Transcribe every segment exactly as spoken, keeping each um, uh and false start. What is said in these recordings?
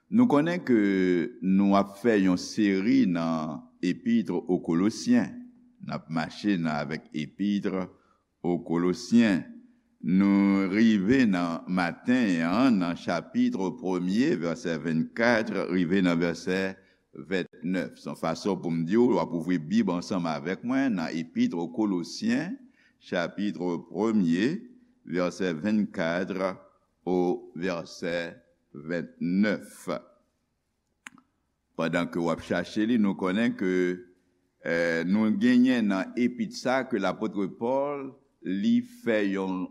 Nou konnen ke nou ap fè yon seri nan Epître aux Colossiens. N ap mache nan, avèk Epître aux Colossiens. Nou rive nan maten an, nan chapit premye, vèsè vennkat, rive nan vèsè vennèf. Se yon fason pou m di w, w ap ouvri Bib ansanm avèk mwen nan Epître aux Colossiens, chapit premye, vèsè vennkat au vèsè vennèf. Pandan ke w ap chache li, nou konnen ke, eh, nou genyen nan epit sa ke lapot Pòl, li fè yon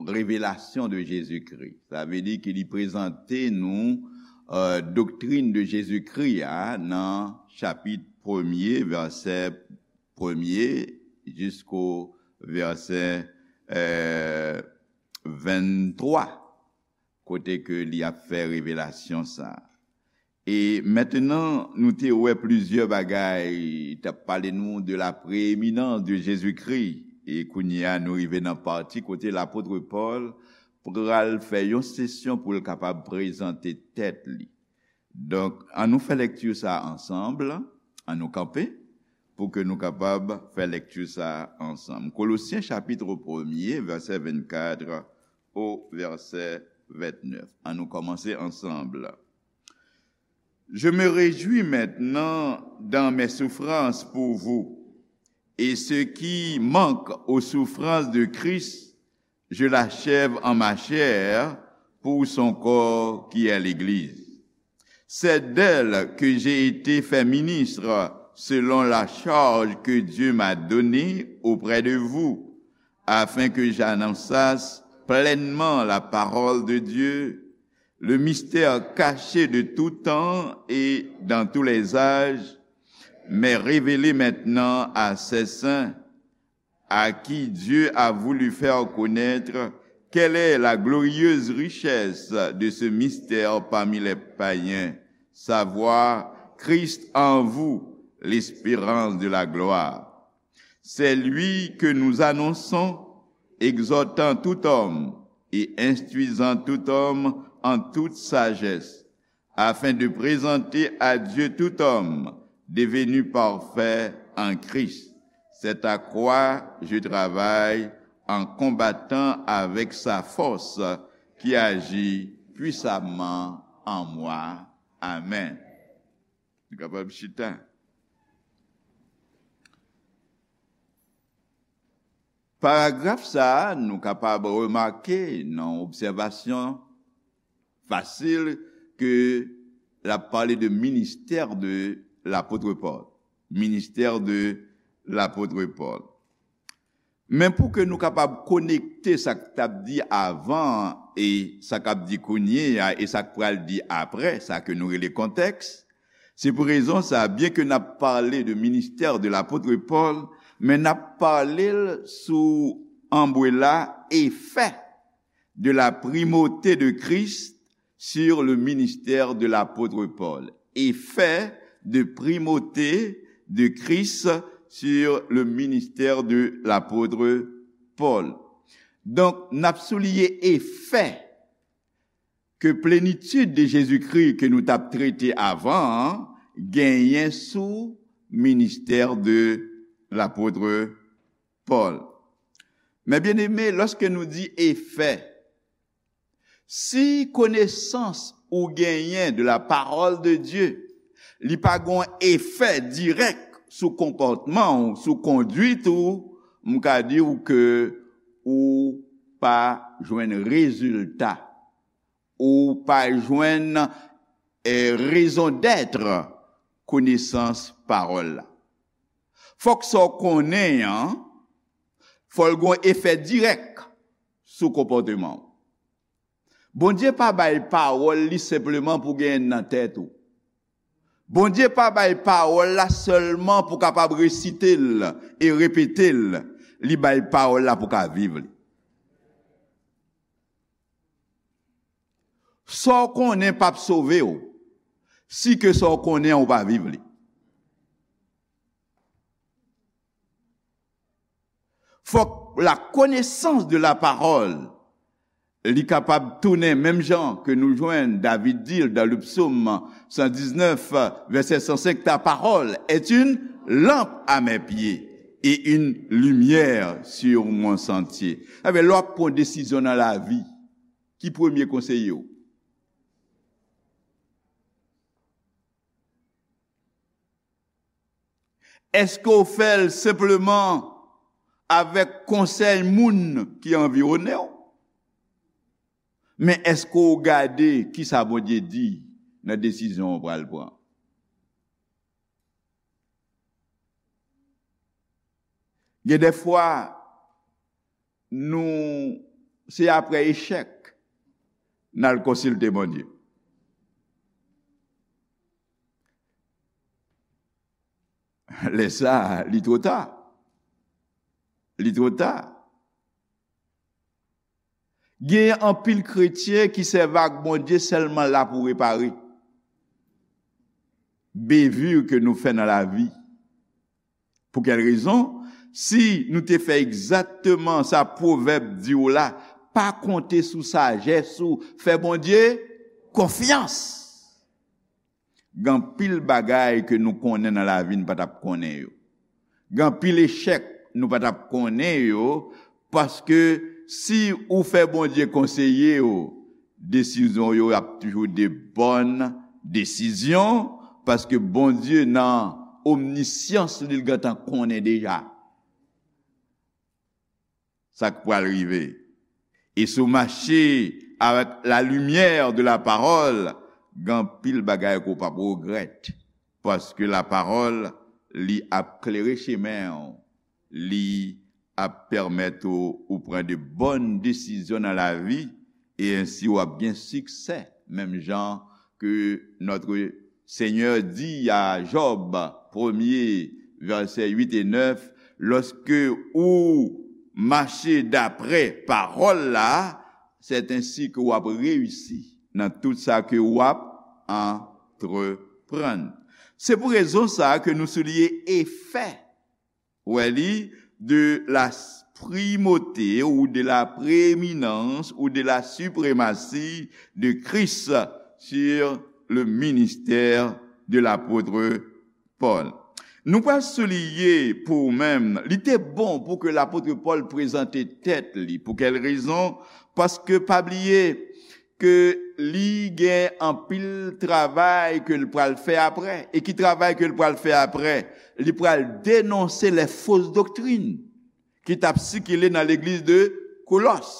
revelasyon de Jezikri. Sa vle di ke li prezante nou, eh, doktrin de Jezikri a nan chapit premye, vèsè premye, jisko vèsè, eh, venntwa, kote ke li ap fè revelasyon sa a. E mentnan, nou te wè plizyè bagay, t ap pale nou de la prééminence de Jésus-Christ. E kounye a, nou rive nan pati kote lapot Pòl pral fè yon sesyon pou l kapab prezante tèt li. Donk, ann nou fè lekti sa a ansanm, ann nou kanpe pou ke nou kapab fè lekti sa a ansanm. Kolosyen chapit premye, vèsè vennkat au vèsè vennèf. Ann nou kòmanse ansanm. Je me réjouis maintenant dans mes souffrances pour vous, et ce qui manque aux souffrances de Christ, je l'achève en ma chair pour son corps qui est l'Église. C'est d'elle que j'ai été fait ministre selon la charge que Dieu m'a donnée auprès de vous, afin que j'annonçasse pleinement la parole de Dieu, le mystère caché de tout temps et dans tous les âges, mais révélé maintenant à ses saints, à qui Dieu a voulu faire connaître quelle est la glorieuse richesse de ce mystère parmi les païens, savoir Christ en vous, l'espérance de la gloire. C'est lui que nous annonçons, exhortant tout homme et instruisant tout homme en toute sagesse, afin de présenter à Dieu tout homme devenu parfait en Christ. C'est à quoi je travaille en combattant avec sa force qui agit puissamment en moi. Amen. Nou kapab chita. Paragraf sa a, nou kapab remake nan obsèvasyon fasil ke l ap pale de ministè de lapot Pòl. Ministè de lapot Pòl. Men pou ke nou kapab konekte sa k t ap di avan e sa k ap di kounye a e sa k pral di apre, sa ke nou rele kontèks, se pou rezon sa, byen ke n ap pale de ministè de lapot Pòl, men n ap pale l sou anbrela efè de la primauté de Christ sur le ministère de l'apôtre Paul. Effet de primauté de Christ sur le ministère de l'apôtre Paul. Donk, n ap souliye efè ke plenitid de Jezikri ke nou t ap trete avan an genyen sou ministè de lapot Pòl. Men byeneme, lòske nou di efè, si konesans ou genyen de la parole de Dieu, li pa gon efè dirèk sou konpòtman w, sou konduit ou, m ka di w ke ou pa jwenn rezilta, ou pa jwenn, eh, raison d'être konesans pawòl la. Fòk sa w konnen an, fò l gon efè dirèk sou konpòteman w. Bondye pa bay pawòl li senpleman pou genyen nan tèt ou. Bondye pa bay pawòl la sèlman pou kapab resite l e repete l. Li bay pawòl la pou ka viv li. Sa w konnen p ap sove w, si ke sa w konnen an ou pa viv li. Fòk la connaissance de la parole Li kapab tounen menm jan ke nou jwenn David di l dans le psaume cent dix-neuf, vèsè san senk, ta parole est une lampe à mes pieds et une lumière sur mon sentier. Sa vle, lè w ap pran desizyon nan lavi, ki premye konseye w? Èske w fè l senpleman avèk konsèy moun ki anviwonnen w? Men èske w gade kisa Bondye di nan desizyon w pral pran? Gen de fwa, nou, se apre echèk n al konsilte Bondye. Lè sa a, li twò ta. Li twò ta. Gen anpil kretyen ki sèvi ak Bondye sèlman la pou repare bevir ke nou fè nan lavi. Pou kèl rezon? Si nou te fè egzakteman sa pwovèb di w la, pa konte sou sajès ou, fè Bondye konfyans. Gen anpil bagay ke nou konnen nan lavi n pa t ap konnen yo. Gen anpil echèk nou pa t ap konnen yo, paske si ou fè Bondye konseye w, desizyon w yo ap toujou de bòn desizyon, paske Bondye nan omnisyans li, l gentan konnen deja sa k pral rive. E si w mache avèk la lumière de la parole, gen anpil bagay ke w p ap regrèt, paske la parole, li ap klere chemen w, li ap pèmèt ou, ou pran de bòn desizyon nan lavi, e ensi w ap gen siksè, menm jan ke notre Seigneur di a Jòb, premye, vèsè uit e nèf, lòske ou mache daprè pawòl la, c'est ainsi ke w ap reyisi nan tout sa ke w ap antreprann. Se pou rezon sa a ke nou souliye efè, wè li, de la primauté ou de la prééminence ou de la suprématie de Christ sur le ministère de l'apôtre Paul. Nou pral souliye pou ou menm, li te bon pou ke lapot Pòl prezante tèt li. Pou kèl rezon? Paske pa bliye ke li gen anpil travay ke l pral fè apre. E ki travay ke l pral fè apre? Li pral denonse lè fos doktrin ki t ap sikile nan legliz de Kolòs.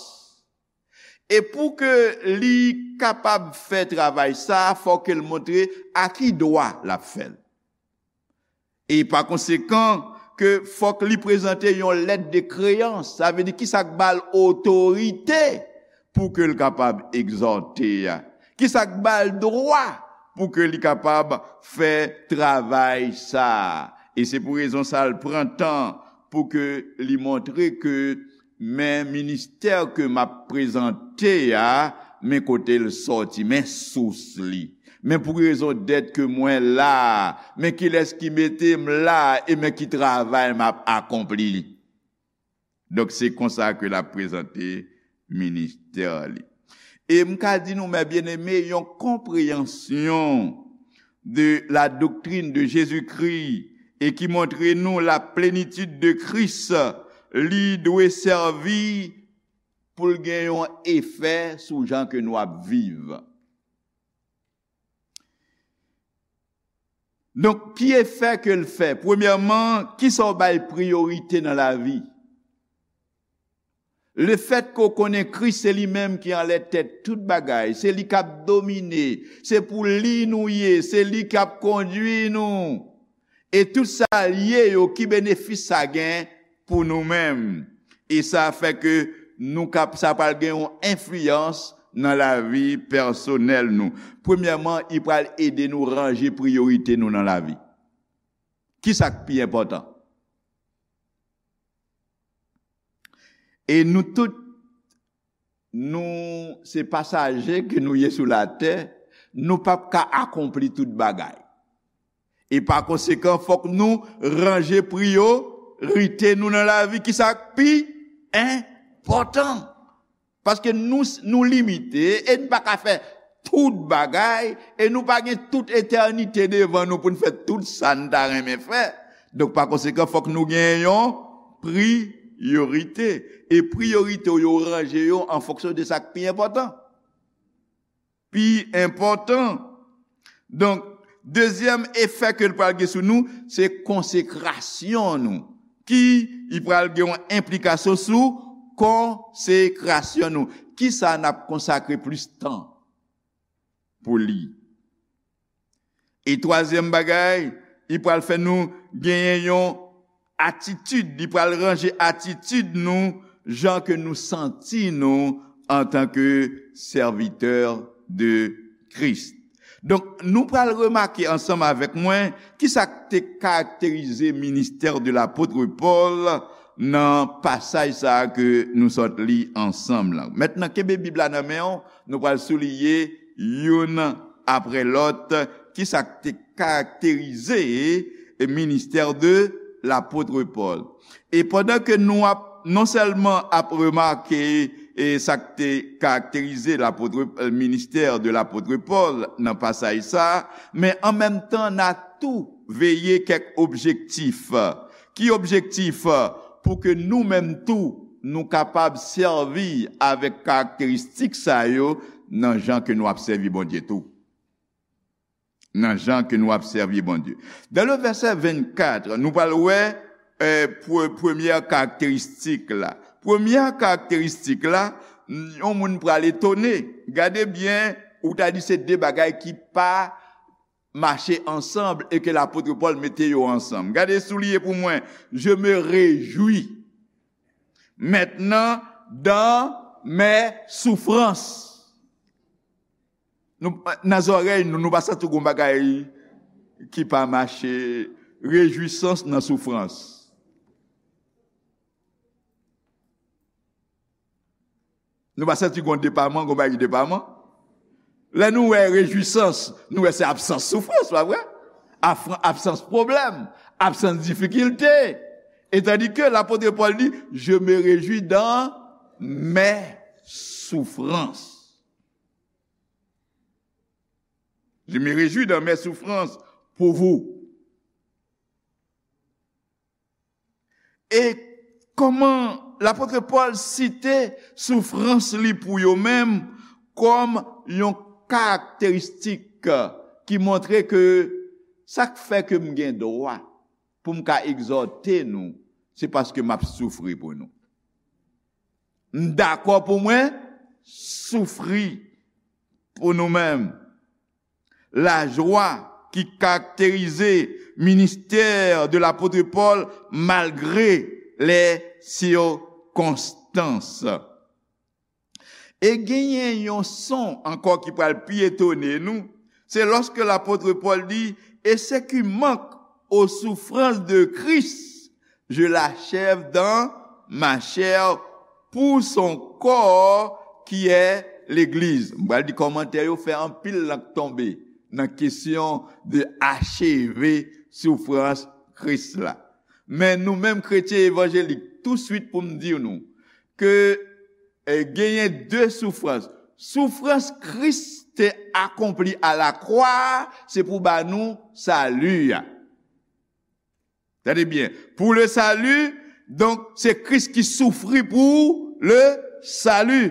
E pou ke li kapab fè travay sa a, fòk ke l montre a ki dwa l ap fè l. E pa konsekan, ke fòk li prezante yon lèt de kreyans, sa vle di kisa k ba l otorite pou ke l kapab egzòte a. Kisa k ba l dwa pou ke li kapab fè travay sa a. E se pou rezon sa a l pran tan pou ke li montre ke men ministè ke m ap prezante a, men kote l sòti, men sous li. Men pou rezon dèt ke mwen la a, men kilès ki mete m la a, e men ki travay m ap akonpli. Donk, se konsa ke l ap prezante ministè li. E m ka di nou, mes bien-aimés, yon konpreyansyon de la doctrine de Jésus-Christ e ki montre nou la plenitid de Kris, li dwe sèvi pou l gen yon efè sou jan ke nou ap viv. Donk, ki efè ke l fè? Premyèman, kisa w bay priyorite nan lavi? Lefèt ke w konnen Kris se li menm ki anlè tèt tout bagay, se li k ap domine, se pou li nou ye, se li k ap kondui nou. E tout sa l ye yo, ki benefis sa gen pou nou menm? E sa fè ke nou kap, sa pral gen yon enfliyans nan lavi pèsonèl nou. Premyèman, li pral ede nou ranje priyorite nou nan lavi. Kisa k pi enpòtan? E nou tout, nou se pasaje ke nou ye sou latè, nou p ap ka akonpli tout bagay. E pa konsekan, fòk nou ranje priyorite nou nan lavi. Kisa k pi enpòtan? Paske nou, nou limite e n pa ka fè tout bagay, e nou pa gen tout etènite devan nou pou n fè tout sa n ta renmen fè. Donk, pa konsekan, fòk nou gen yon priyorite. E priyorite w yo ranje yo an fonksyon de sa k pi enpòtan. Pi enpòtan. Donk, dezyèm efè ke l pral gen sou nou, se konsekrasyon nou. Ki, li pral gen yon enplikasyon sou konsekrasyon nou. Kisa n ap konsakre plis tan pou li? E twazyèm bagay, li pral fè nou genyen yon atitid, li pral ranje atitid nou, jan ke nou santi nou antanke sèvitè de Kris. Donk, nou pral remake ansanm avèk mwen kisa k te karakterize ministè de lapot Pòl nan pasaj sa a ke nou sot li ansanm lan. Mentnan, kenbe Bib la nan men w, nou pral souliye youn apre lòt kisa k te karakterize ministè de lapot Pòl. E pandan ke nou ap, non sèlman ap remake e sa k te karakterize lapot, e, ministè de lapot Pòl nan pasaj sa a, men an menm tan, n a tou veye kèk objektif. Ki objektif? Pou ke nou menm tou, nou kapab sèvi avèk karakteristik sa yo nan jan ke nou ap sèvi Bondye tou. Nan jan ke nou ap sèvi Bondye. Dans le verset vingt-quatre, nou pral wè, e, pre-, premyè karakteristik la. Premyè karakteristik la, yon moun pral etone. Gade byen, ou ta di se de bagay ki pa mache ansanm e ke lapot Pòl mete yo ansanm. Gade, souliye pou mwen, je me réjouis maintenant dans mes souffrances. Nou, nan zòrèy nou, nou pa santi gon bagay ki pa mache, rejwisans nan soufrans. Nou pa santi gon depaman, gon bagay depaman. Lè nou wè rejwisans, nou wè se absans soufrans, pa vre? Afran-, absans pwoblèm, absans difikilte. E tandi ke lapot Pòl di, je me réjouis dans mes souffrances. Je me réjouis dans mes souffrances pour vous. E kòman lapot Pòl site soufrans li pou yo menm kòm yon karakteristik ki montre ke sa k fè ke m gen dwa pou m ka egzòte nou, se paske m ap soufri pou nou. M dakò pou mwen soufri pou nou menm. Lajwa ki karakterize ministè de lapot Pòl malgre lè sikonstans. E genyen yon son ankò ki pral pi etone nou, se lòske lapot Pòl di, et ce qui manque aux souffrances de Christ, je l'achève dans ma chair pour son corps qui est l'Église. M pral di kòmantè yo fè anpil lank tonbe nan kesyon de acheve soufrans Kris la. Men nou menm kretyen evanjelik, touswit pou m di nou ke, e, genyen de soufrans. Soufrans Kris te akonpli a la kwa a, se pou ba nou sali a. Tande byen. Pou le sali, donk, se Kris ki soufri pou le sali.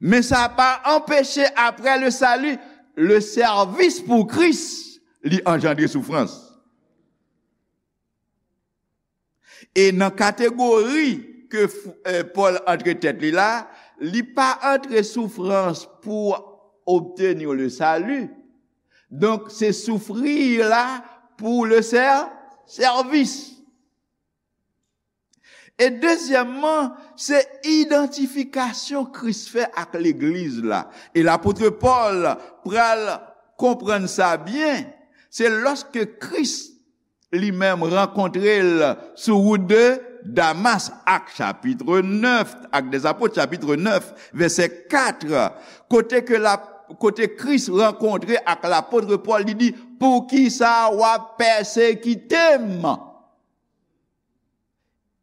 Men sa pa anpeche, apre le sali, le sèvis pou Kris, li anjandre soufrans. E nan kategori ke f-, e, Pòl antre tèt li la, li pa antre soufrans pou obtenir le salut. Donk, se soufri la pou le sè-, sèvis. E dezyèmman, se idantifikasyon Kris fè ak legliz la. E lapot Pòl pral konprann sa byen, se lòske Kris li menm rankontre l sou wout de Damas, Ak chapit nèf, Actes des Apôtres chapit nèf, vèsè kat, kote ke la, kote Kris rankontre ak lapot Pòl, li di, poukisa w ap pèsekite m?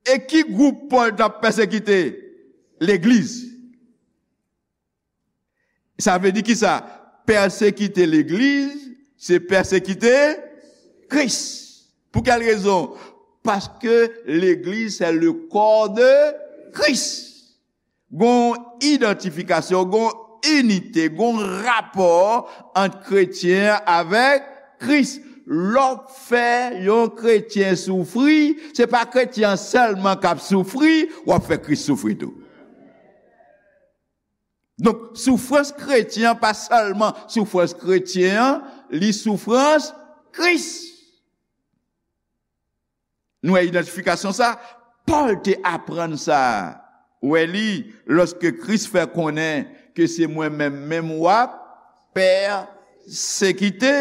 E ki gwoup Pòl t ap pèsekite? legliz. Sa vle di ki sa? Pèsekite legliz, se pèsekite Kris. Pou kèl rezon? Paske legliz, se le corps de Christ. Gon idantifikasyon, gon inite, gon rapò ant kretyen avèk Kris. Lè w fè yon kretyen soufri, se pa kretyen an sèlman k ap soufri, w ap fè Kris soufri tou. Donk, soufrans kretyen an pa sèlman soufrans kretyen an, li soufrans Kris. Nou wè idantifikasyon sa? Pòl te aprann sa. Ou wè li, lòske Kris fè konnen ke se mwen menm, menm w ap pèsekite.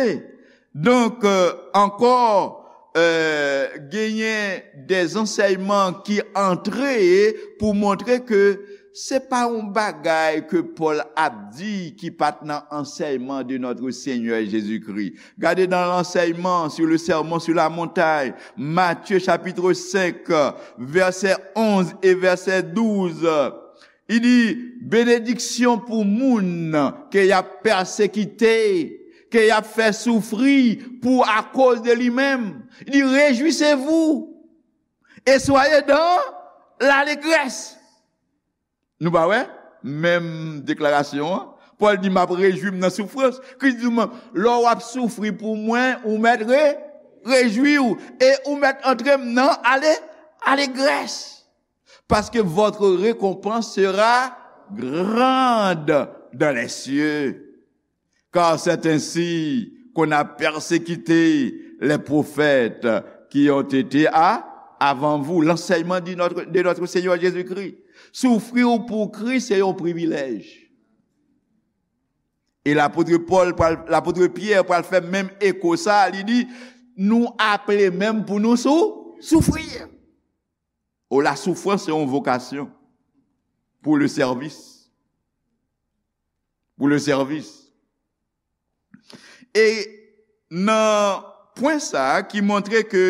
Donk, euh, ankò, euh, genyen de zansèyman ki antre pou montre ke se pa yon bagay ke Pòl ap di ki pa t nan ansèyman de notre Seigneur Jésus-Christ. Gade dans l'enseignement sur le sermon sur la montagne, Matthieu chapitre cinq, verset onze et verset douze. Li di, benediksyon pou moun ke y ap pèsekite, ke y ap fè soufri pou akoz de li menm. Li di, réjouissez-vous et soyez dans l'allégresse. Nou pa wè? Menm deklarasyon an. Pòl di, m ap rejwi m nan soufrans. Kris di, men, lè w ap soufri pou mwen, ou mèt re, rejwi w. E ou mèt antre m nan ale, alegrès. Parce que votre récompense sera grande dans les cieux. Car c'est ainsi qu'on a persécuté les prophètes qui ont été à, avant vous. L'enseignement de notre, de notre Seigneur Jésus-Christ. Soufri pou Kris se yon privilèj. E lapot Pòl, pral- lapot Pyè pral fè menm eko sa, li di, nou aple menm pou nou sou, soufri. O, la soufrans se yon vokasyon pour le service. Pour le service. E nan pwen sa a ki montre ke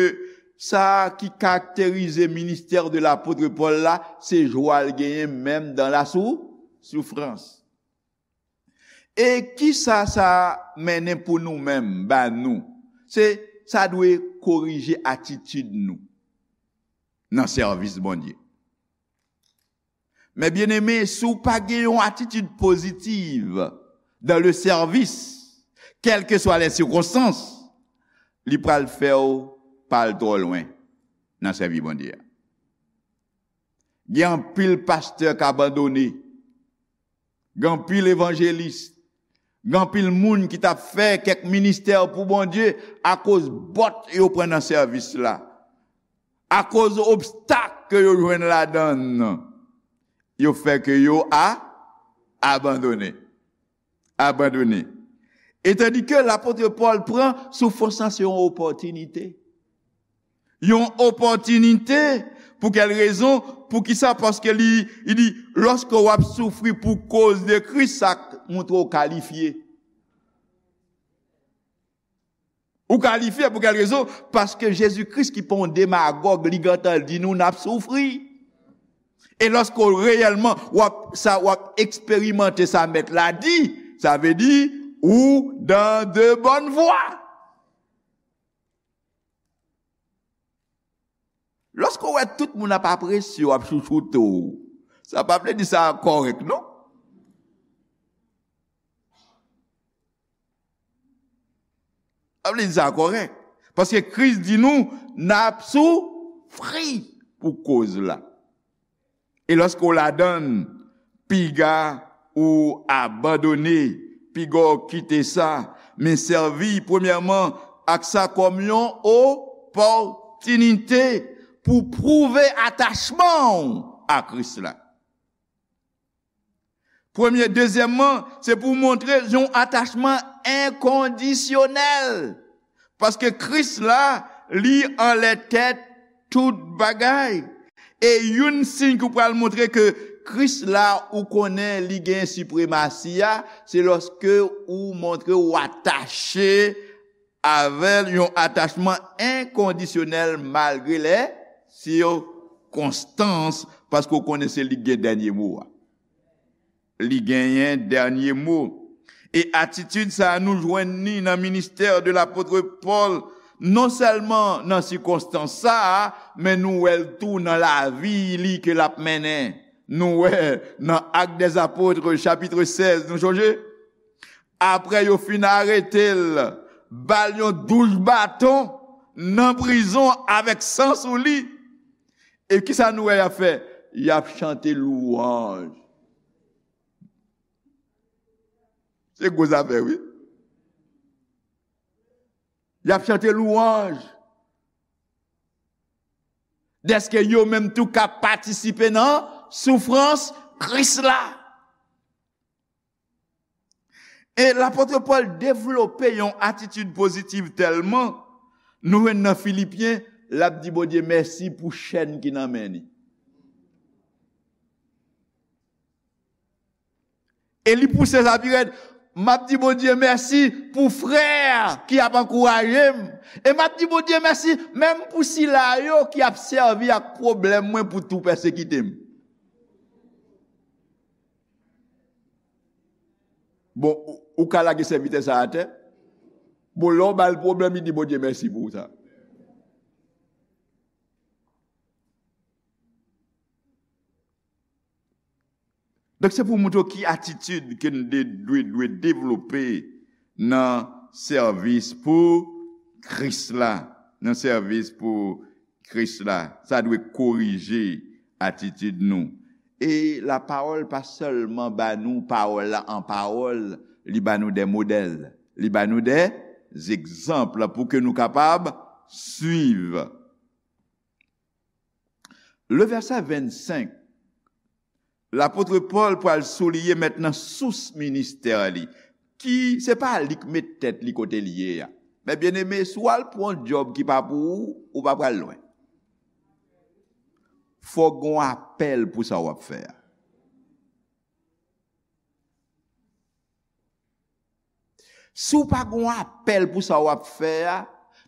sa ki karakterize ministè de lapot Pòl la, se jwa l genyen menm dan la sou, soufrans. E kisa sa mennen pou nou menm, ba nou? Se, sa dwe korije atitid nou nan sèvis Bondye. Men byeneme, si w pa gen yon atitid pozitiv dans le service, quelles que soient les circonstances, li pral fè w pa al twò lwen nan sèvi Bondye a. Gen anpil pastè k abandone. Gen anpil evanjelis. Gen anpil moun ki t ap fè kèk ministè pou Bondye akoz bòt yo pran nan sèvis la. Akoz obstak ke yo jwenn ladan l, yo fè ke yo a, abandone. Abandone. E tandi ke lapot Pòl pran soufrans lan se yon opòtinite. Yon opòtinite. Pou kèl rezon? Poukisa? Paske li, li di, lòske w ap soufri pou koz de Kris, sa montre w kalifye. Ou kalifye pou kèl rezon? Paske Jezi Kris ki pa yon demagòg, li gentan di nou n ap soufri. E lòske w reyèlman, w ap, sa, w ap eksperimante sa mèt la di, sa vle di, ou dans de bonnes voies. Lòske w wè tout moun ap apresye w, ap chouchoute w, sa pa vle di sa kòrèk, non. Sa vle di sa kòrèk. Paske Kris di nou, n ap soufri pou koz la. E lòske w ladan l, piga ou abandone, piga w kite sa, men sèvi premyèman ak sa kòm yon opòtinite pou pwouve atachman w a Kris la. Premye, dezyèmman, se pou w montre yon atachman enkondisyonèl. Paske Kris la, li anlè tèt tout bagay. E youn siy ki w pral montre ke Kris la, ou konnen li gen sipremasi a, se lòske ou montre w atache avè l yon atachman enkondisyonèl malgre lè sikonstans Paske w konnen se li ki gen dènye mo a. Li genyen dènye mo. E atitid sa a, nou jwenn li nan ministè de lapot Pòl, non sèlman nan sikonstans sa a, men nou wè l tou nan lavi li ke l ap mennen. Nou wè nan Actes des Apôtres, chapit sèz, nou sonje? Apre yo fin arete l, ba l yon douch baton nan prizon avèk san sou li. E kisa nou wè y ap fè? Y ap chante lwanj. Se gwo zafè, wi. Y ap chante lwanj. Dèske yo menm tou ka patisipe nan soufrans Kris la. E lapot Pòl devlope yon atitid pozitiv tèlman, nou jwenn nan Filipyen, l ap di Bondye mèsi pou chèn ki nan men li. E li pouse sa pi rèd, m ap di Bondye mèsi pou frè ki ap ankouraje m. E m ap di Bondye mèsi menm pou sila yo ki ap sèvi ak pwoblèm mwen pou tou pèsekite m. Bon, ou, ou ka lage sèvitè sa atè. Bon, lè w ba l pwoblèm, li di Bondye mèsi pou sa. Donk, se pou w montre w ki atitid ke n de, dwe, dwe devlope nan sèvis pou Kris la. Nan sèvis pou Kris la. Sa dwe korije atitid nou. E lapawòl pa sèlman ba nou pawòl la an pawòl, li ba nou de modèl, li ba nou de egzanp pou ke nou kapab swiv. Le vèsè vennsenk, lapot Pòl pral souliye mentnan sous ministè li, ki se pa li k met tèt li kote l ye a. Men byeneme, si w al pran yon djòb ki pa pou ou, ou pa pral lwen. Fòk gon apèl pou sa w ap fè a. Si w pa gon apèl pou sa w ap fè a,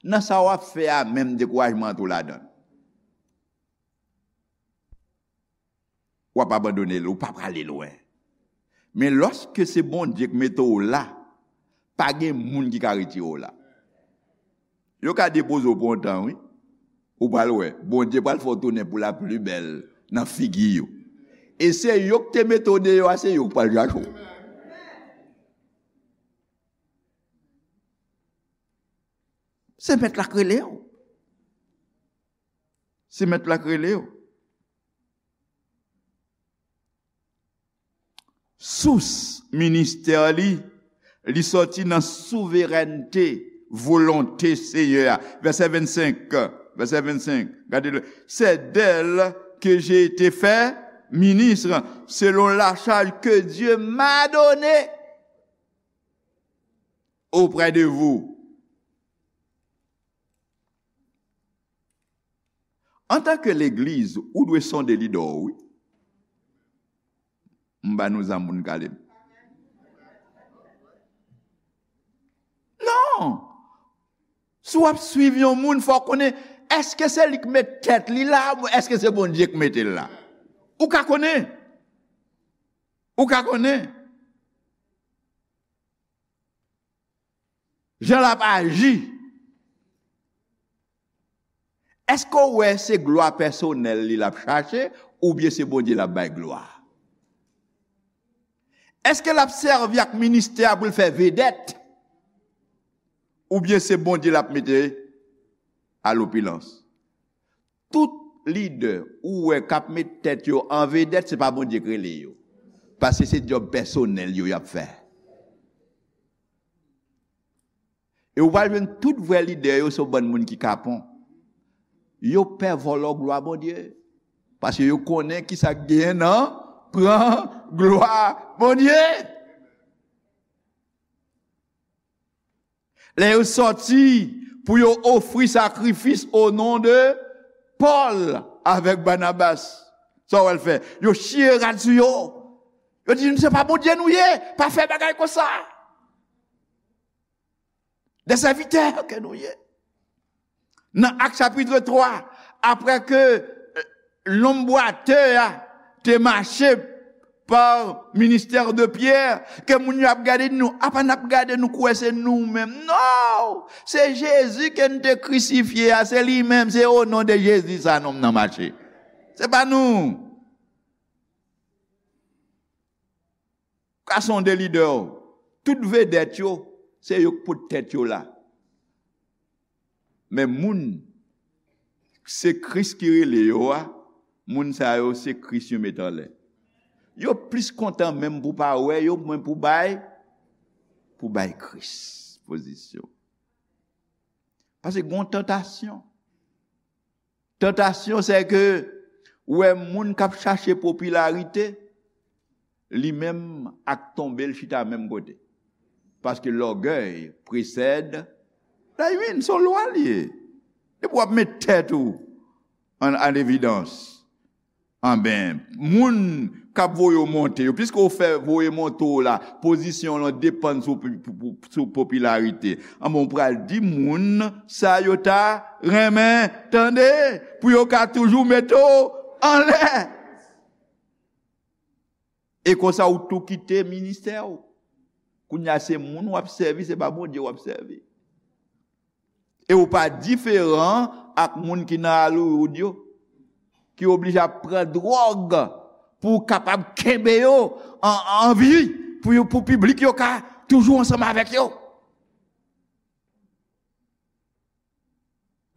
nan sa w ap fè a menm dekourajman antre w ladan l. W ap abandone l, ou pa prale lwen. Men lòske se Bondye k mete w la, pa gen moun ki ka retire w la. Yo ka depoze w pou yon tan, wi. Ou pral wè, Bondye pral fè w tounen pou la pli bèl nan figi yo. E se yo k te mete w deyò a, se yo k pral chache w. Se mèt la k rele w. Se mèt la k rele w. Sous ministè li, li sòti nan souverènte, volonte Senyè a. Vèsè vennsenk, vèsè vennsenk, gade le, c'est d'elle que j'ai été fait ministre selon la charge que Dieu m'a donnée auprès de vous. Antanke legliz, ou dwe sonde lidè w, wi. M ba nou zam pou n kale m. Non! Si w ap swiv yon moun, fò w konnen, èske se li k met tèt li la, oubyen èske se Bondye k mete l la? Ou ka konnen. Ou ka konnen. Jan l ap aji. Èske w wè se glwa pèsonèl li l ap chache, oubyen se Bondye l ap bay glwa? Èske l ap sèvi ak ministè a pou l fè vedèt, oubyen se Bondye l ap mete a lopilans? Tout lidè ou wè k ap met tèt yo an vedèt, se pa Bondye k rele yo. Paske se djòb pèsonèl yo y ap fè. E ou pral jwenn tout vrè lidè yo se yon bann moun ki kapon. Yo pè vòlò glwa Bondye. Paske yo konnen kisa k genyen nan pran glwa Bondye. Lè yo sòti pou yo ofri sakrifis o non de Pòl avèk Banabas, sa w wè l fè? Yo chire rad sou yo. Yo di, "Nou se pa Bondye nou ye, pa fè bagay konsa. De sèvitè ke nou ye." Nan Ak chapit twa, apre ke, euh, Lonm bwatè a te mache pa ministè de Pyè, ke moun yo ap gade nou, apa n ap gade nou kwè se nou menm. Non! Se Jezi ke n te krisifye a, se li menm, se o non de Jezi sa nonm nan mache. Se pa nou. Ka sonde lidè w. Tout vedèt yo, se yo k pot tèt yo la. Men moun, se Kris ki rele yo a, moun sa yo, se Kris yo met anlè. Yo plis kontan menm pou pa wè yo, mwen pou bay, pou bay Kris pozisyon. Paske gon tantasyon. Tantasyon, se ke ou wè moun k ap chache popilarite, li menm ak tonbe l chita menm kote. Paske lògèy presèd la ruine, se yon lwa li ye. Depi w ap met tèt ou an, an evidans, anben, moun k ap voye w monte yo, piske w fè voye monte w la, pozisyon w lan depann sou, sou, sou popilarite. Anben, w pral di moun sa yo ta renmen tande, pou yo ka toujou mete w anlè. E konsa, ou tou kite ministè w. Kounye a, se moun w ap sèvi, se pa Bondye w ap sèvi. E ou pa diferan ak moun ki nan Hollywood yo, ki oblije ap pran dwòg pou kapab kenbe yo an, an vi, pou yo, pou piblik yo ka toujou ansanm avèk yo.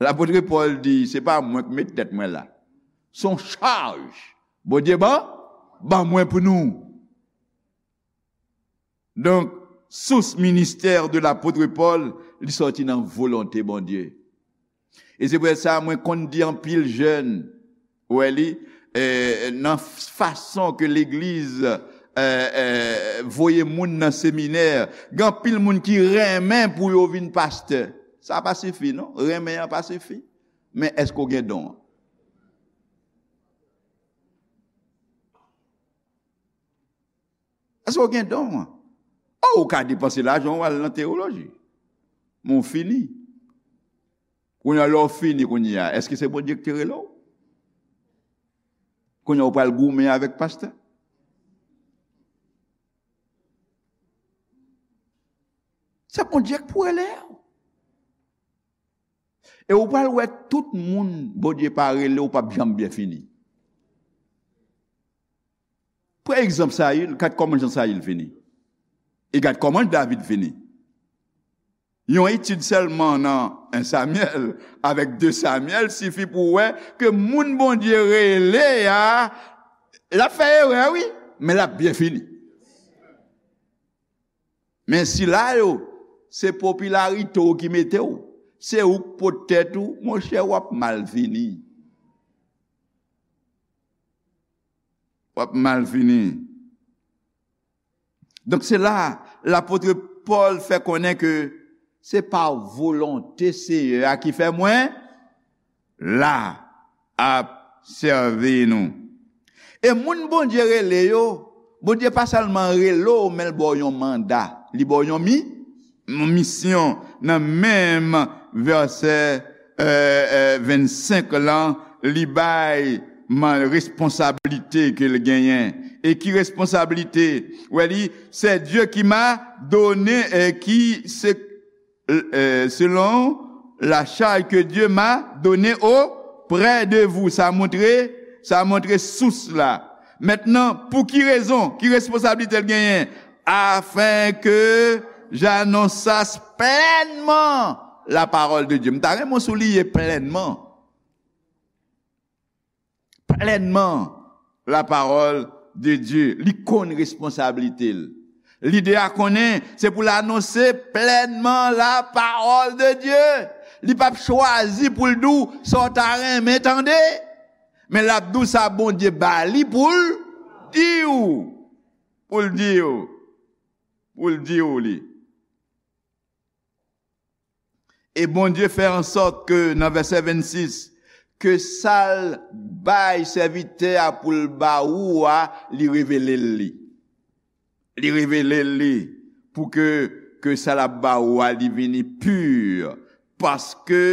Lapot Pòl di, se pa mwen k met tèt mwen la. Se yon chaj Bondye ban, ban mwen pou nou. Donk, sous ministè de lapot Pòl, li sòti nan volonte Bondye. E se pou sa mwen konn di anpil jèn, ou wè li, eh, nan fason ke legliz, eh, eh, voye moun nan seminè, gen anpil moun ki renmen pou yo vin pastè. Sa pa sifi, non. Renmen an pa sifi. Men èske w gen don an? Èske w gen don an? O, ou ka depanse lajan w al nan teyoloji. Men w fini. Kounye a, lè w fini kounye a, èske se Bondye ki te rele w? Kounye a, ou pral goumen avèk pastè? Se Bondye ki pou rele w. E ou pral wè tout moun Bondye pa rele, ou p ap janm byen fini. Pran egzanp Sayil, gad kòman jan Sayil fini. E gad kòman David fini. Yon etid sèlman nan en Samyèl avèk de Samyèl sifi pou w wè ke moun Bondye rele a, l ap fè erè, wi, men l ap byen fini. Men sila yo, se popilarite w ki mete w. Se ou k pot tèt ou, monchè, w ap mal fini. W ap mal fini. Donk, se la, lapot Pòl fè konnen ke se pa volonte Seyè a ki fè mwen la ap sèvi nou. E moun Bondye rele yo, Bondye pa sèlman rele w, men l ba w yon manda. Li ba w yon mi, yon misyon. Nan menm vèsè, eh, eh, vennsenk lan, li bay man, responsablite ke l genyen. E ki responsablite? Wè li, c'est Dieu qui m'a donné, eh, qui, se euh, selon la charge que Dieu m'a donnée auprès de vous. Sa montre, sa montre sous la. Mentnan, pou ki rezon, ki responsablite l genyen? Afin que j'annonçasse pleinement la parole de Dieu. M ta renmen w souliye plenman. Plenman la parole de Dieu. Li konn responsablite l. Lidè a konnen se pou l anonse plenman la parole de Dieu. Li p ap chwazi pou l di w sa w ta renmen tande. Men l ap di w sa Bondye ba li pou l di w. Pou l di w. Pou l di w li. E Bondye fè ansòt ke, nan vèsè vennsis, ke sa l bay sèvitè a pou l ba ou a, li revele l li. Li revele l li pou ke, ke sa l ap ba ou a, li vini pi. Paske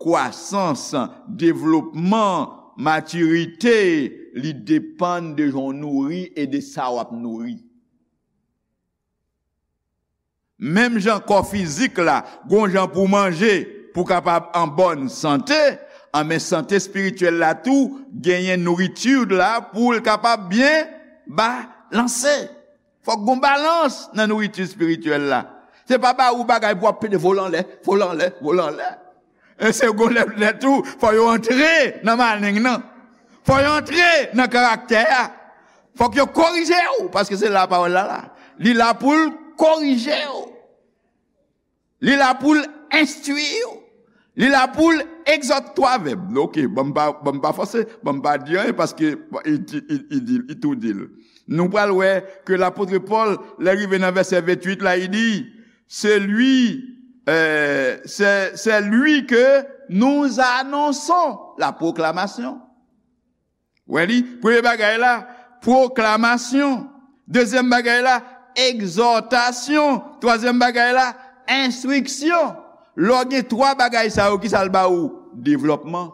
kwasans, devlopman, Matirite, li depann de jan w nouri e de sa w ap nouri. Menm jan kò fizik la, gon jan pou w manje, pou w kapab an bòn sante, anben sante espirityèl la tou, genyen nouriti la pou l kapab byen balanse. Fòk gon balans nan nouriti espirityèl la. Se pa ba ou bagay pou w ap pede vole anlè, vole anlè, vole anlè. E se gon lè, lè tou, fò yo antre nan maleng nan. Fò yo antre nan karaktè a. Fòk yo korije w, paske se la pawòl la la. Li la pou l korije w. Li la pou l enstwi w. Li la pou l egzòte twa vèb. Ok, ban m pa, ban m pa fòse, ban m pa di anyen, paske li di, li, li di, li tou di l. Nou pral wè ke lapot Pòl, lè l rive nan vèsè venntuit la, li di, c'est lui, euh, c'est, c'est lui que nous annonçons, la proclamation. Wè li, premye bagay la, pwoklamasyon. Dezyèm bagay la, egzòtasyon. Twazyèm bagay la, enstriksyon. Lè w gen twa bagay sa yo, ki sa l ba ou? Devlòpman,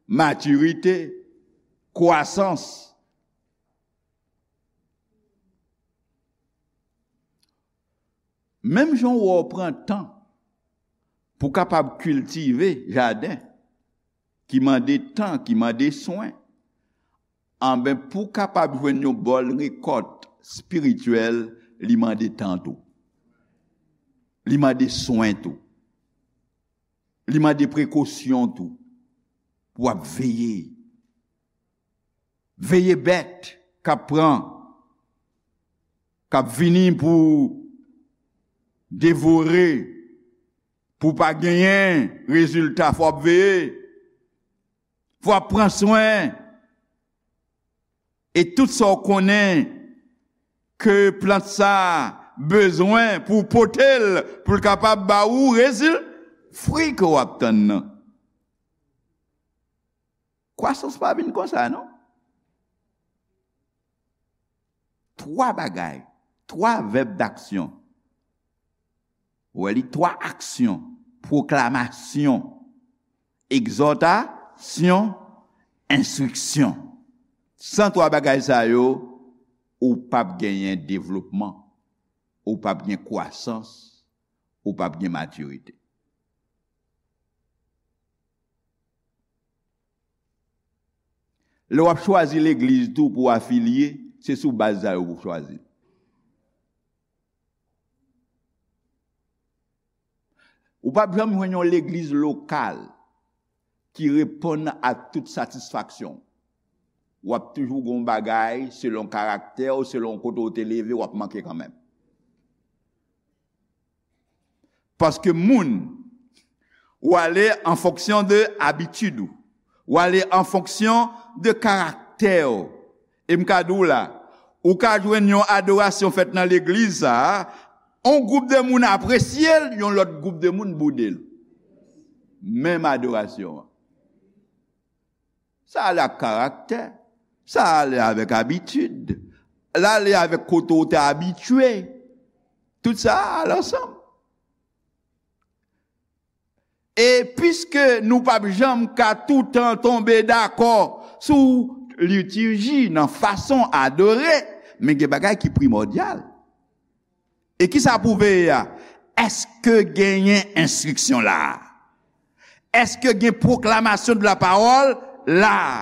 matirite, kwasans. Menm jan w wè w pran tan pou w kapab kiltive jaden, ki mande tan, ki mande swen, anben, pou w kapab jwenn yon bòn rekòt espirityèl, li mande tan tou. Li mande swen tou. Li mande prekosyon tou. Pou w ap veye. Veye bèt k ap pran, k ap vini pou devore, pou pa genyen rezilta, fò w ap veye. Fò w ap pran swen. E tout sa w konnen ke plant sa a bezwen pou w pote l, pou l kapab ba ou rezil-, fwi ke w ap tann nan. Kwasans pa vin konsa, non. Twa bagay, twa vèb daksyon. Ou wè li, twa aksyon, pwoklamasyon, egzòtasyon, enstriksyon. San twa bagay sa yo, ou p ap genyen devlopman, ou p ap gen kwasans, ou p ap gen matirite. Lè w ap chwazi legliz tou pou w afilye, se sou baz sa yo pou w chwazi. Ou p ap janm jwenn yon legliz lokal ki reponn a tout satisfaksyon w. W ap toujou gen yon bagay, selon karaktè w, selon kote w te leve, w ap manke kanmenm. Paske moun, ou ale an fonksyon de abitid ou. Ou ale an fonksyon de karaktè w. E m ka di w la, ou ka jwenn yon adorasyon fèt nan legliz sa a, yon gwoup de moun apresye l, yon lòt gwoup de moun boude l. Menm adorasyon an. Sa ale ak karaktè. Sa ale avèk abitid. L ale avèk kote w te abitye. Tout sa ale ansanm. E piske nou p ap janm ka toutan tonbe dakò sou litirji nan fason adore, men gen bagay ki primòdyal. E ki sa pou veye a? Èske genyen enstriksyon la a? Èske gen pwoklamasyon de la pawòl la a?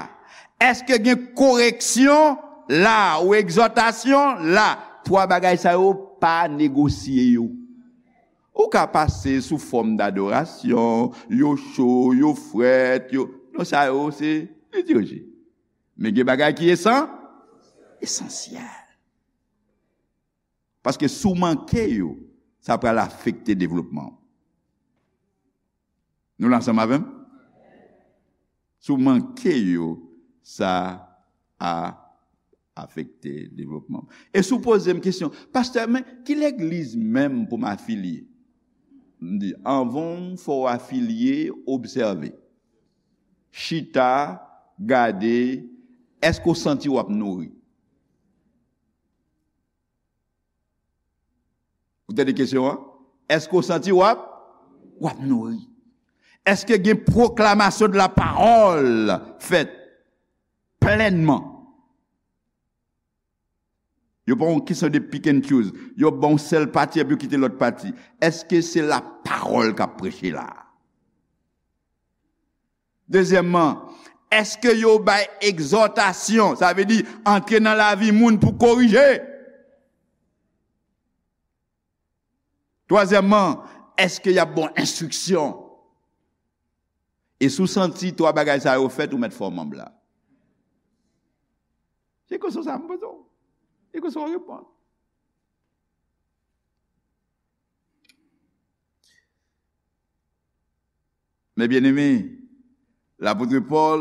Èske gen koreksyon la a ou egzòtasyon la a? Twa bagay sa yo, pa negosye yo. Ou ka pase sou fòm dadorasyon, yo cho, yo frèt, yo, non, sa yo se litirji. Men gen bagay ki esan-, esansyèl. Paske si w manke yo, sa pral afekte devlopman w. Nou la ansanm avè m? Si w manke yo, sa a afekte devlopman w. E si w poze m kesyon, "Pastè, men ki legliz menm pou m afilye?" M di, anvan w fò w afilye, obsève. Chita, gade, èske w santi w ap nouri? Ou tande kesyon an? Èske w santi w ap, w ap nouri? Èske gen pwoklamasyon de la pawòl fèt plènman? Yo pa yon kesyon de pick and choose. Yo ba yon sèl pati epi yo kite lòt pati. Èske se la pawòl k ap preche la? Dezyèmman, èske yo bay egzòtasyon, sa vle di antre nan lavi moun pou korije? Twazyèmman, èske y ap ba w enstriksyon? E si w santi twa bagay sa yo fèt, ou mèt fè w manb la. Se kesyon sa m poze w. Se kesyon w reponn. Men byeneme, lapot Pòl,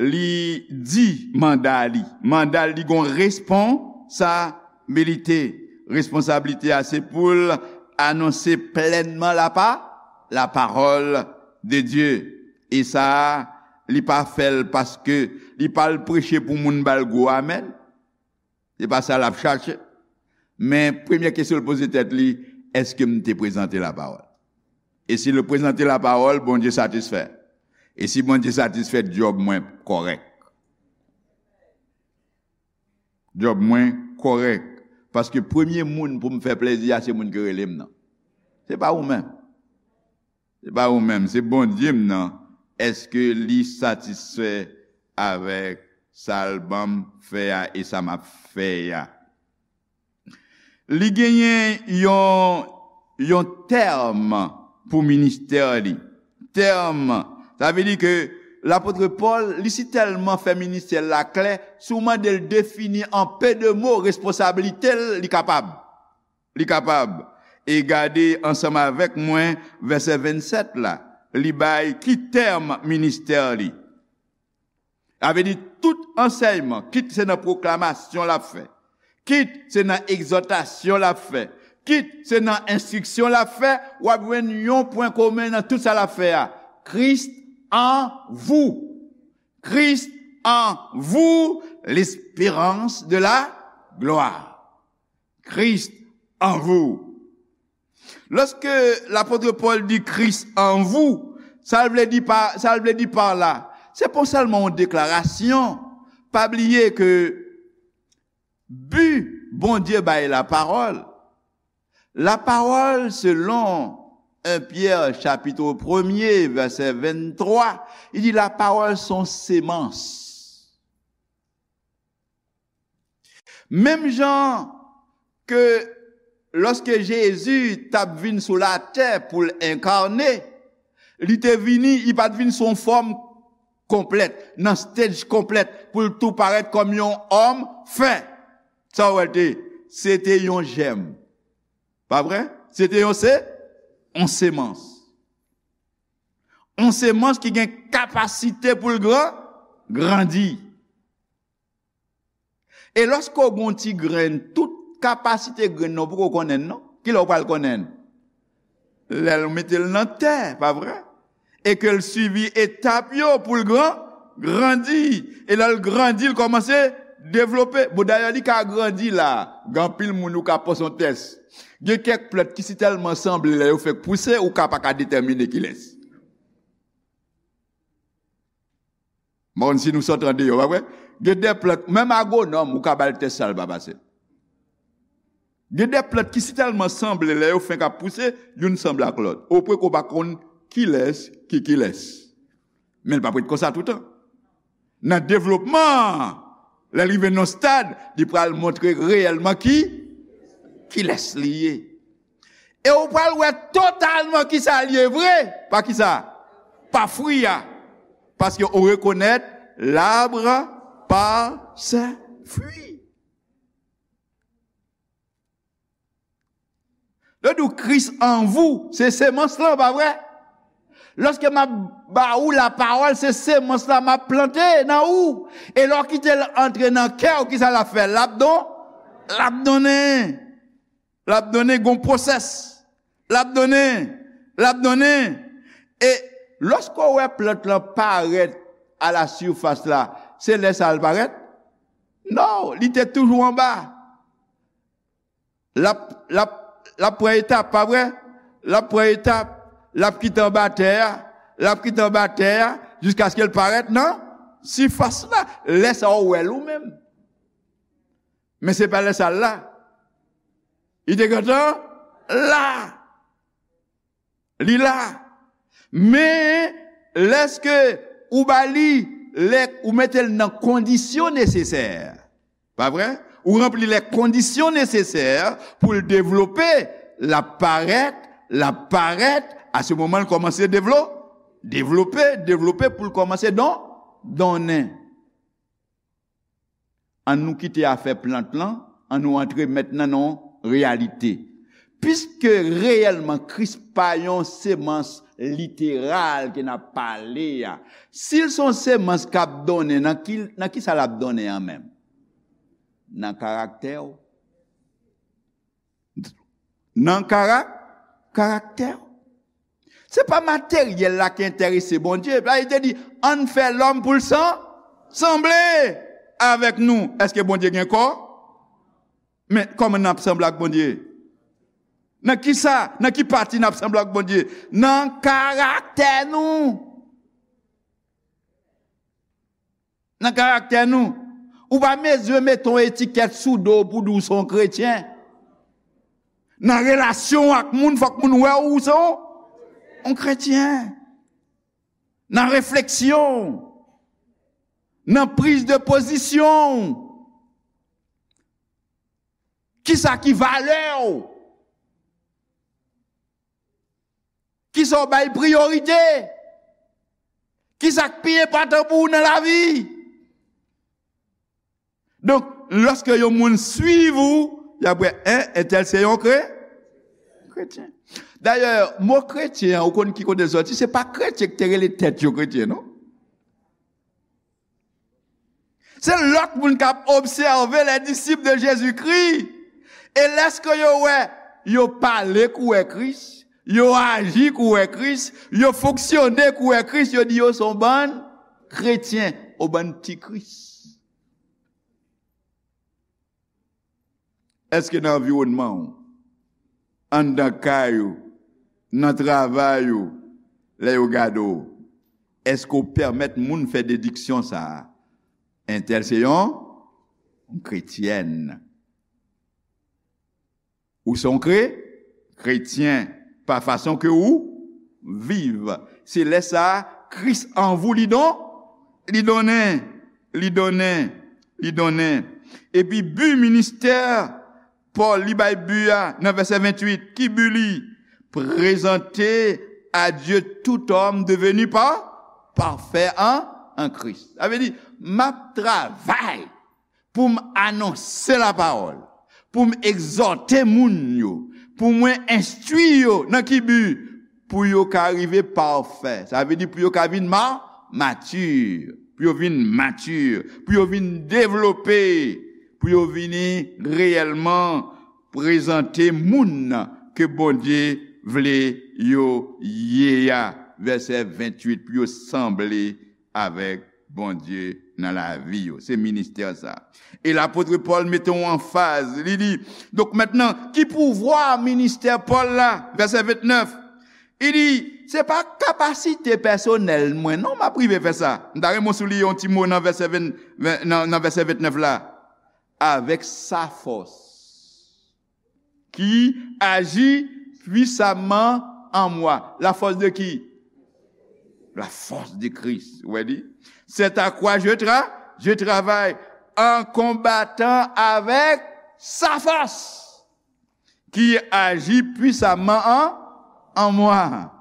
li di manda li. Manda li gon responsabilite. Responsablite a se pou l anonse plènman lapa, lapawòl de Dye. E sa a, li pa fè l paske li pa al preche pou moun ba l gwo amèn. Se pa sa l ap chache. Men premye kesyon l poze tèt li, èske m te prezante lapawòl? E si l prezante lapawòl, Bondye satisfè. E si Bondye satisfè, djòb mwen kòrèk. Djòb mwen kòrèk. Paske premye moun pou m fè plezi a, se moun ki rele m nan. Se pa ou menm. Se pa ou menm, se Bondye m nan. Èske li satisfè avèk sa l ban m fè a e sa m ap fè a? Li genyen yon, yon tèm pou ministè li. Tèm, sa vle di ke lapot Pòl, li si tèlman fè ministè l la klè, si w mande l defini an pe de mo responsablite l, li kapab. Li kapab. E gade ansanm avèk mwen vèsè vennsèt la. Li bay ki tèm ministè li. Sa vle di tout ansèyman, kit se nan pwoklamasyon l ap fè, kit se nan egzòtasyon l ap fè, kit se nan enstriksyon l ap fè, w ap jwenn yon pwen komen nan tout sa l ap fè a. Christ en vous. Christ en vous, l'espérance de la gloire. Christ en vous. Lòske lapot Pòl di Christ en vous, sa l vle di pa, sa l vle di pa la, se pa sèlman yon deklarasyon. Pa bliye ke bi Bondye bay lapawòl, lapawòl selon en Pyè chapit premye vèsè venntwa, li di lapawòl se yon semans. Menm jan ke lòske Jezi t ap vin sou latè pou l enkane, li te vini, li pa t vin sou yon fòm konplèt, nan stage konplèt, pou l tou parèt kòm yon òm fen. Sa w wè l te? Se te yon jèm. Pa vre? Se te yon se, yon semans. Yon semans ki gen kapasite pou l gran, grandi. E lòske w gen yon ti grenn, tout kapasite grenn nan, ou poko konnen l non. Kilè w pral konnen l? Lè l mete l nan tè, pa vre? E ke l swivi etap yo pou l gran, grandi. E lè l grandi, l kòmanse devlope. Bon, dayè, li ka grandi la. Gen anpil moun ou ka pase yon tès. Gen kèk plant ki si tèlman sanble lè yo fèk pouse, ou ka pa ka detèmine kilès. M pa konn si nou sot andeyò, pa vre? Gen de plant, menm agwonòm, ou ka ba l tès sa, l pa pase. Gen de plant ki si tèlman sanble, lè yo fenk ap pouse, youn sanble ak lòt. Opwen ke w pa konn kilès ki kilès. Men l p ap ret konsa toutan. Nan devlopman, lè l rive nan yon stad, li pral montre reyèlman ki, kilès li ye. E ou pral wè totalman kisa l ye vre. Pa kisa? Pa fwi a. Paske ou rekonèt l'arbre par ses fruits. Lè w di w Christ en vous, se semans lan, pa vre? Lòske m ap ba ou lapawòl, se semans la m ap plante nan ou. E lè w kite l antre nan kè w, kisa l ap fè? L ap don, l ap donnen. L ap donnen gon pwosès. L ap donnen. L ap donnen. E lòske w wè plant lan parèt a la sifas la, se lè sa l parèt? Non, li te toujou anba. L ap, l ap, l ap pran etap, pa vre? L ap pran etap, l ap kite anba tè a, L ap kite anba tè a jiskaske l parèt nan sifas la. Lè sa a, ou wè l ou menm. Men se pa lè sa a l la. Li te gentan la. Li la. Men, lèske ou ba li, lè ou mete l nan kondisyon nesesè, pa vre? Ou ranpli lè kondisyon nesesè pou l devlope, l ap parèt, l ap parèt, a se moman l kòmanse devlo-, devlope, devlope pou l kòmanse don-, donnen. Ann nou kite afè plant lan, ann nou antre mentnan nan yon reyalite. Piske reyèlman Kris pa yon semans literal ke n ap pale a, si l se yon semans k ap donnen, nan ki, nan ki sa l ap donnen an menm? Nan karaktè w. Nan kara-, karaktè w. Se pa materyèl la ki enterese Bondye. Bib la te di, ann fè lòm pou l san-, sanble avèk nou. Èske Bondye gen kò? Men kòman n ap sanble ak Bondye? Nan ki sa? Nan ki pati n ap sanble ak Bondye? Nan karaktè nou. Nan karaktè nou. Ou pa bezwen mete yon etikèt sou do w pou di w se yon kretyen. Nan relasyon w ak moun, fòk moun wè w se yon, yon kretyen. Nan refleksyon w, nan priz de pozisyon w. Kisa ki valè w? Kisa w bay priyorite? Kisa k pi enpòtan pou ou nan lavi? Donk, lòske yon moun swiv ou, y ap wè, en, entèl se yon kre-, kretyen. Dayè, mo kretyen an, ou konn ki kote l sòti? Se pa kretyen ki te rele tèt yo kretyen, non. Se lòt moun k ap obsève les disciples de Jésus-Christ. E lèske yo wè, yo pale kou wè Kris, yo aji kou wè Kris, yo fonksyone kou wè Kris, yo di yo se yon bann kretyen, yon bann ti Kris. Èske nan anviwònman w, anndan kay ou, nan travay ou, lè yo gade w, èske w pèmèt moun fè dediksyon sa a? Entèl se yon, yon kretyèn. Ou se yon kre-, kretyen pa fason ke ou viv. Se lè sa a, Kris an vou li don-, li donnen, li donnen, li donnen. Epi bi ministè Pòl, li bay bi a nan vèsè venntuit. Ki bi li? Présenter à Dieu tout homme devenu pa-, parfait en, en Christ. Sa vle di, m ap travay pou m anonse lapawòl, pou m egzòte moun yo, pou mwen enstwi yo nan ki bi? Pou yo ka rive pafè. Sa vle di pou yo ka vin ma-, mati, pou yo vin mati, pou yo vin devlope, pou yo vini reyèlman prezante moun ke Bondye vle yo ye a. Vèsè venntuit, pou yo sanble avèk Bondye nan lavi yo. Se ministè sa. E lapot Pòl mete yon anfaz. Li di, donk mentnan, ki pouvwa ministè Pòl la? Vèsè vennèf. Li di, se pa kapasite pèsonèl mwen, non, m ap rive fè sa. M ta renmen w souliye yon ti mo nan vèsè ven, ven, nan, nan vèsè vennèf la. Avèk sa fòs. Qui agit puissamment en moi. La force de qui? La force de Christ. Ou wè li? C'est à quoi je tra-, je travaille en combattant avec sa force qui agit puissamment en, en moi.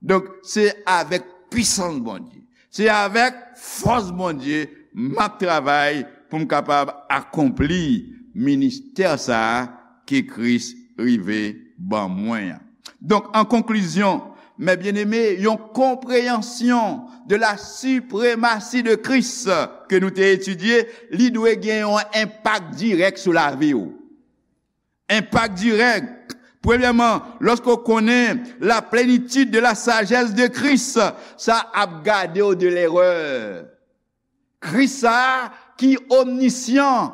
Donk, se avèk pisans Bondye, se avèk fòs Bondye m ap travay pou m kapab akonpli ministè sa a ke Kris rive ban mwen an. Donk, an konklizyon, mes bien-aimés, yon konpreyansyon de la suprématie de Christ ke nou te etidye, li dwe gen yon enpak dirèk sou lavi w. Enpak dirèk. Premyèman, lòske w konnen la plénitude de la sagesse de Christ, sa ap gade w de lerè. Kris sa a ki omnisyan,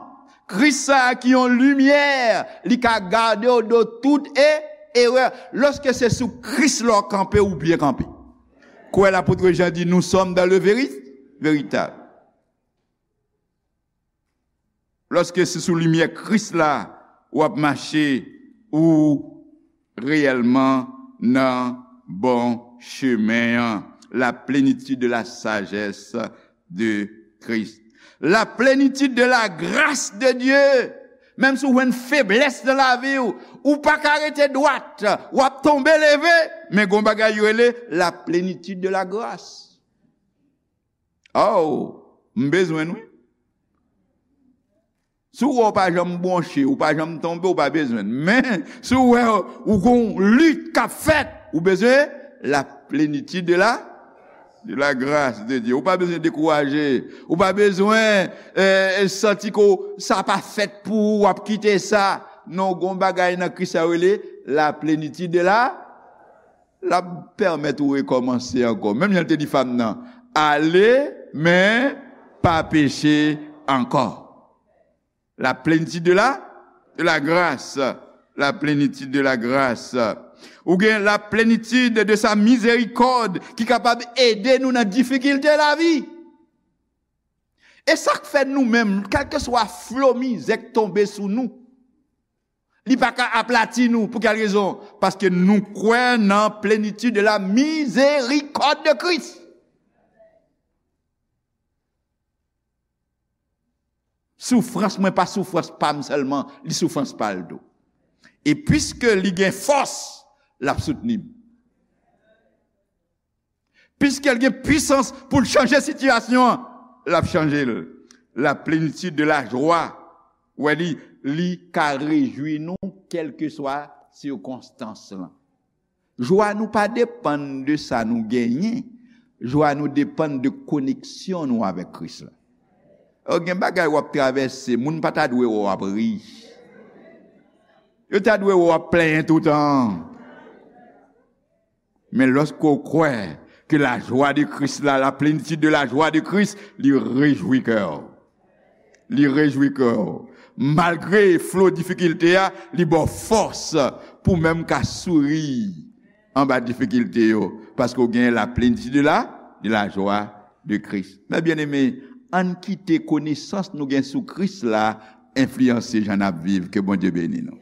Kris sa a ki yon limyè, li ka gade w de tout e-, erè. Lòske se sou Kris la w kanpe, ou byen kanpe. Kwè lapot Jan di, nous sommes dans le véri-, véritable. Lòske se sou limyè Kris la w ap mache, ou reyèlman nan bon chemen an. La plénitude de la sagesse de Christ. La plénitude de la grâce de Dieu. Menm si w jwenn feblès nan lavi w, ou pa ka rete dwat, w ap tonbe leve, men gon bagay yo rele la plénitude de la grâce. Oh, m bezwen l wi. Si w wè w pa janm bwonche, ou pa janm tonbe, ou pa bezwen l. Men, si w wè ou gon lit k ap fèt, ou bezwen la plénitude de la, de la grâce de Dieu. Ou pa bezwen dekouraje. Ou pa bezwen eh, santi ke w, sa pa fèt pou ou, w ap kite sa. Non, gon bagay nan Kris la rele la plénitude de la, l ap pèmèt ou rekòmanse ankò. Menm jan l te di fanm nan, ale, men pa peche ankò. La plénitude de la, de la grâce. La plénitude de la grâce. Ou gen la plénitude de sa miséricorde ki kapab ede nou nan difikilte lavi. E sa k fè nou menm, kèlkeswa flo mizè k tonbe sou nou, li pa ka aplati nou. Pou kèl rezon? Paske nou kwè nan plénitude de la miséricorde de Christ. Soufrans mwen pa soufrans pa m sèlman, li soufrans pa l tou. E piske li gen fòs, l ap soutni m. Piske l gen pwisans pou l chanje sitiyasyon an, l ap chanje l. La plénitude de la joie. Ou wè li, li ka rejwi nou kèlkeswa sikonstans lan. Jwa nou pa depann de sa nou genyen. Jwa nou depann de koneksyon nou avèk Kris la. Gen bagay w ap travèse, moun pa ta dwe wè w ap ri. Yo ta dwe wè w ap plenyen toutan. Men lòske w kwè ke la joie de Christ la, la plénitude de la joie de Christ, li rejwi kè w. Li rejwi kè w. Malgre flo difikilte a, li ba w fòs pou menm ka souri anba difikilte yo, paske w gen la plénitude de la, de la joie de Christ. Mes bien-aimés, ann kite konesans nou gen sou Kris la enfliyanse jan n ap viv. Ke Bondye beni nou.